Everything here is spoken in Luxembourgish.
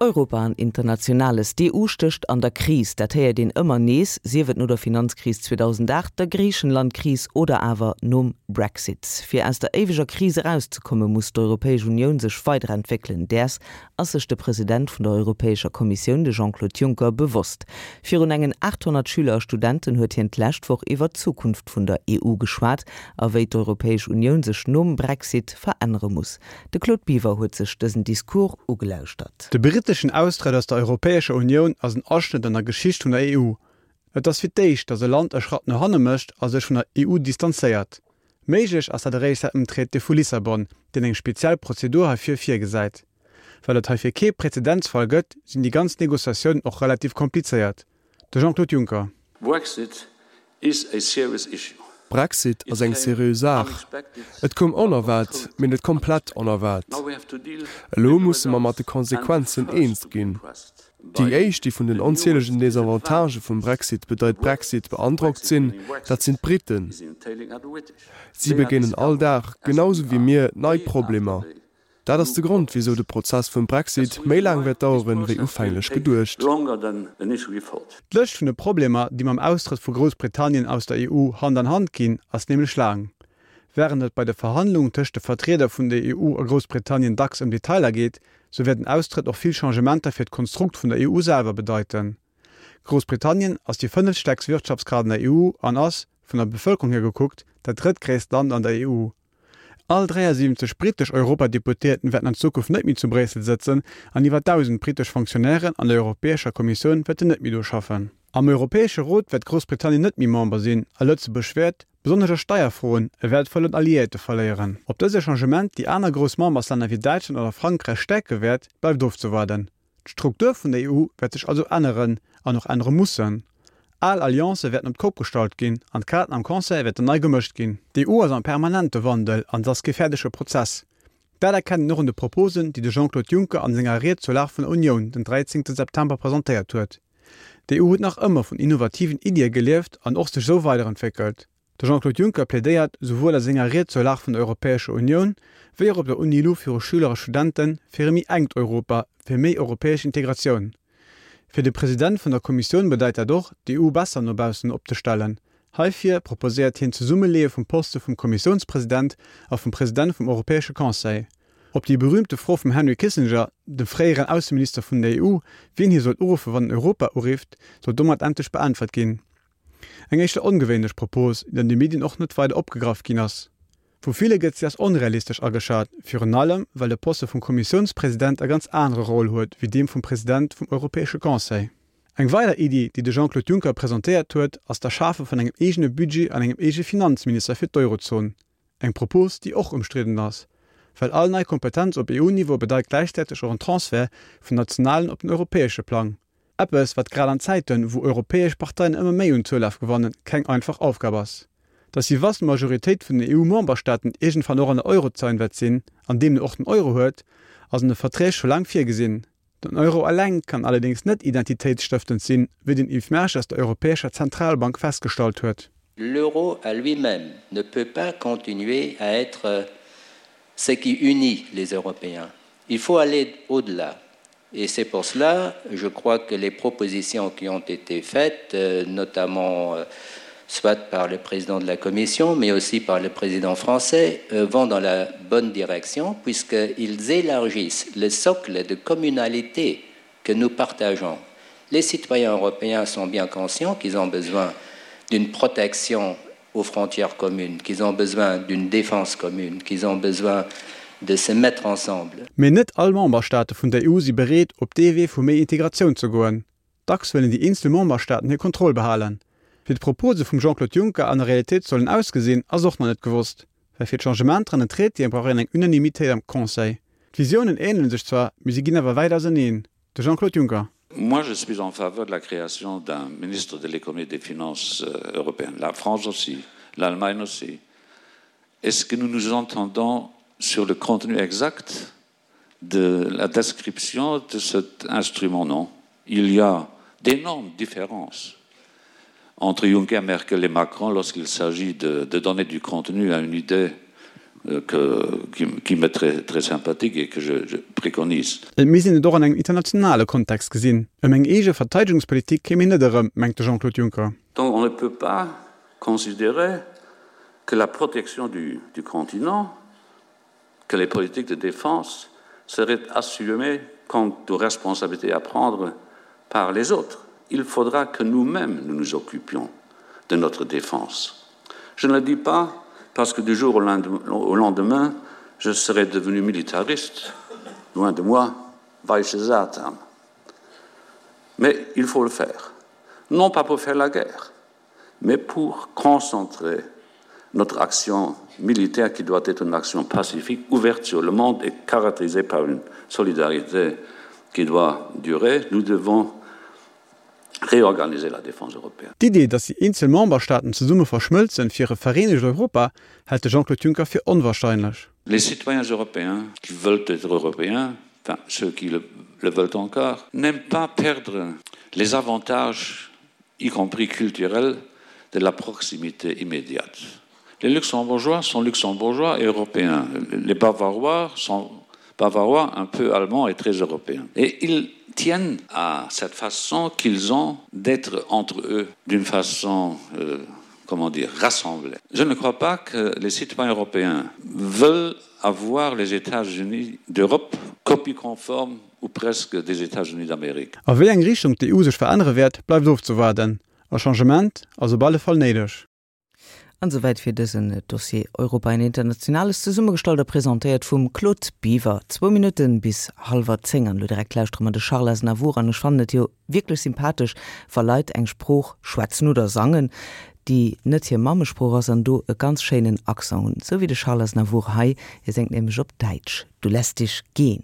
Europa an Internationales, D'EU stécht an der Kris. Dat héiert een ëmmer nees, sief et no der Finanzkris 2008, der Griichenlandkris oder awer nom Brexit. Fir aus der éiweger Kris erauszekomme muss d'Europäesch Unioun sech weiderentwéckelen. Däers ass sech de President vun der Europäescher Kommissioun, de Jean-Claude Juncker, bewosst. Virun engen 800 Schüler a Studenten huet hien d'lescht Woch iwwer d'Zukunft vun der EU geschwat a wéi d'Europäesch Unioun sech nom Brexit verännere muss. De Claude Biver huet sech dësen Discours ugelauschtert. De britteschen Austrëtt aus der Europäescher Unioun ass en Aschnëtt an der Geschicht vun der EU. Et ass fir d'éischt, datt e Land e Schratt no hanne mécht a sech vun der EU distanzéiert. Méiglech ass dat eréischt säit dem Traité vu Lissabon, deen eng speziell Prozedur heifir virgesäit. Well et heifir kee Prezedenzfall gëtt, sinn déi ganz Negociatiounen och relativ komplizéiert. De Jean-Claude Juncker. Brexit is a serious issue. Brexit ass eng seriö Saach. Et koum onerwaart, mee net komplett onerwaart. Elo musse mer mat de Konsequenzen eens ginn. Déi éischt, déi vun den onzielegen Desavantagë vum Brexit, bedeit Brexit, beandrockt sinn, dat sinn d'Briten. Si begéinen all Dag, genau sou wéi mir, nei Problemer. Dat ass de Grond, wisou de Prozess vum Brexit méi laang wäert daueren, wéi ufänglech geduecht. D'Lëscht vun de Problemer, déi mam Austrëtt vu Groussbritannien aus der EU Hand an Hand ginn, ass nämlech laang. Wärend et bei de Verhandlungen tëscht de Vertrieder vun der EU a Groussbritannien dacks ëm Detailer geet, sou wäert den Austrëtt och vill Changementer fir d'Konstrukt vun der EU selwer bedeiten. Groussbritannien ass déi fënnefstäerkst Wirtschaftskraaft an der EU an ass, vun der Bevëlkerung hier gekuckt, dat drëttgréisst Land an der EU. All 73 brittesch Europadeputéierten wäerten an Zukunft net méi zu Bréissel sëtzen an iwwer 1.000 brittesch Fonctionnairen an der Europäescher Kommissioun wäerten net méi do schaffen. Am Europäesche Rot wäert Groussbritannien net méi Member sinn a Lëtzebuerg wäert, besonnesch a Steierfroen, e wäertvollen Alliéierte verléieren. Ob dëse Changement déi aner grouss Memberslänner wéi Däitschland oder Frankräich stäerke wäert, bleift ofzewaarden. D'Struktur vun der EU wäert sech also änneren an och ännere mussen. Al Alliancë wäerten op d'Kopp gestallt ginn an d'Kaarten am Conseil wäerten nei gemëscht ginn. D'EU ass am permanente Wandel an et ass kee fäerdege Prozess. Dat erkennt een och un de Proposen, déi de Jean-Claude Juncker an senger Ried zur Lag vun der Unioun den 13 September presentéiert huet. D'EU huet nach ëmmer vun innovativen Iddie gelieft an och sech esou weiderentwéckelt. De Jean-Claude Juncker plädéiert, souwuel a senger Ried zur Lag vun der Europäescher Unioun, wéi och op der UNILU viru Schüler a Studenten, fir e méi enkt Europa, fir méi europäesch Integratioun. Fir de President vun der Kommissioun bedeit dat och, d'EU besser no baussen opzestellen. Heifir proposéiert hien d'Zesummeleeë vum Poste vum Kommissiounspresident a vum President vum Europäesche Conseil. Op déi berüümte Fro vum Henry Kissinger, dem fréieren Ausseminister vun der EU, wien hie sollt uruffe wann en Europa urifft, sollt domat endlech beäntwert ginn. Eng éischter ongewéinlech Propos, déi an de Medien och net weider opgegraff ginn ass. Vu ville gëtt si als onrealistesch ageschat, virun allem well de Poste vum Kommissiounspresident e ganz anere Rôle huet wéi deem vum President vum Europäesche Conseil. Eng weider Iddi, déi de Jean-Claude Juncker presentéiert huet, ass d'Erschafe vun engem eegene Budget an engem eege Finanzminister fir d'Eurozon. Eng Propos, déi och ëmstridden ass. Well all nei Kompetenz op EU-Niveau bedeit gläichzäiteg och en Transfert vum nationalen op den europäesche Plang. Eppes, wat grad an Zäiten, wou europäesch Parteien ëmmer méi un Zoulaf gewannen, keng einfach Aufgab ass. Datt déi vast Majoritéit vun den EU-Memberstaaten iergendwann och an der Eurozone wäert sinn, an deemno och den Euro huet, ass an de Verträg scho laang virgesinn. Den Euro eleng kann allerdéngs net identitéitsstëftend sinn, wéi den Yves Mersch aus der Europäescher Zentralbank festgestallt huet. L'euro à lui-même ne peut pas continuer à être ce qui unit les Européens. Il faut aller au-delà. Et c'est pour cela, je crois que les propositions qui ont été faites, euh, notamment euh, soit par le président de la Commission, mais aussi par le président français, euh, vont dans la bonne direction, puisqu'ils élargissent le socle de communalité que nous partageons. Les citoyens européens sont bien conscients qu'ils ont besoin d'une protection aux frontières communes, qu'ils ont besoin d'une défense commune, qu'ils ont besoin de se mettre ensemble. Mee net all Memberstaate vun der EU si bereet, op dee Wee vu méi Integratioun ze goen. Dacks wëllen déi eenzel Memberstaaten hir Kontroll behalen. Wéi d'Propose vum Jean-Claude Juncker an der Realitéit sollen ausgesinn, ass och nach net gewosst. Well fir d'Changementer an den Traitéen brauch een eng Unanimitéit am Conseil. D'Visiounen änele sech zwar, mee si ginn awer wäit auseneen. De Jean-Claude Juncker. Moi, je suis en faveur de la création d'un ministre de l'économie et des finances euh, européennes. La France aussi, l'Allemagne aussi. Est-ce que nous nous entendons sur le contenu exact de la description de cet instrument Non. Il y a d'énormes différences entre Juncker, Merkel et Macron lorsqu'il s'agit de, de donner du contenu à une idée. euh, que, qui, qui m'est très, très sympathique et que je, je préconise. Et misst een et och an engem internationale Kontext gesinn. Ëm eng eege Verteidegungspolitik kéim een net erëm, mengt de Jean-Claude Juncker. Donc on ne peut pas considérer que la protection du, du continent, que les politiques de défense seraient assumées quant aux responsabilités à prendre par les autres. Il faudra que nous-mêmes nous nous occupions de notre défense. Je ne le dis pas parce que du jour au lendemain, je serai devenu militariste, loin de moi, Weiche Satan. Mais il faut le faire, non pas pour faire la guerre, mais pour concentrer notre action militaire qui doit être une action pacifique, ouverte sur le monde et caractérisée par une solidarité qui doit durer, nous devons réorganiser la défense européenne. D'Idee, datt déi eenzel Memberstaaten zesumme verschmëlzen fir e vereenegt Europa, hält de Jean-Claude Juncker fir onwahrscheinlech. Les citoyens européens qui veulent être européens, enfin ceux qui le, le veulent encore, n'aiment pas perdre les avantages, y compris culturels, de la proximité immédiate. Les luxembourgeois sont luxembourgeois et européens. Les bavarois sont bavarois un peu allemands et très européens. Et ils tiennent à cette façon qu'ils ont d'être entre eux d'une façon euh, comment dire rassemblée. Je ne crois pas que les citoyens européens veulent avoir les États-Unis d'Europe copie conforme ou presque des États-Unis d'Amérique. A wéi eng Richtung d'EU sech verännere wäert, bleift ofzewaarden. E Changement ass op alle Fall néideg. An esouwäit fir dësen Dossier Europa en Internationales, zesummegestallt a presentéiert vum Claude Biver. Zwou Minutten bis hallwer 10 an elo direkt lauschtere mer de Charles Aznavour an ech fannen et jo wierklech sympathesch, wa Leit eng Sprooch schwätzen oder sangen, déi net hir Mammesprooch ass an do e ganz schéinen Accent hunn, esou wéi de Charles Aznavour hei. Hie séngt nämlech op Däitsch, Du lässt dich gehen.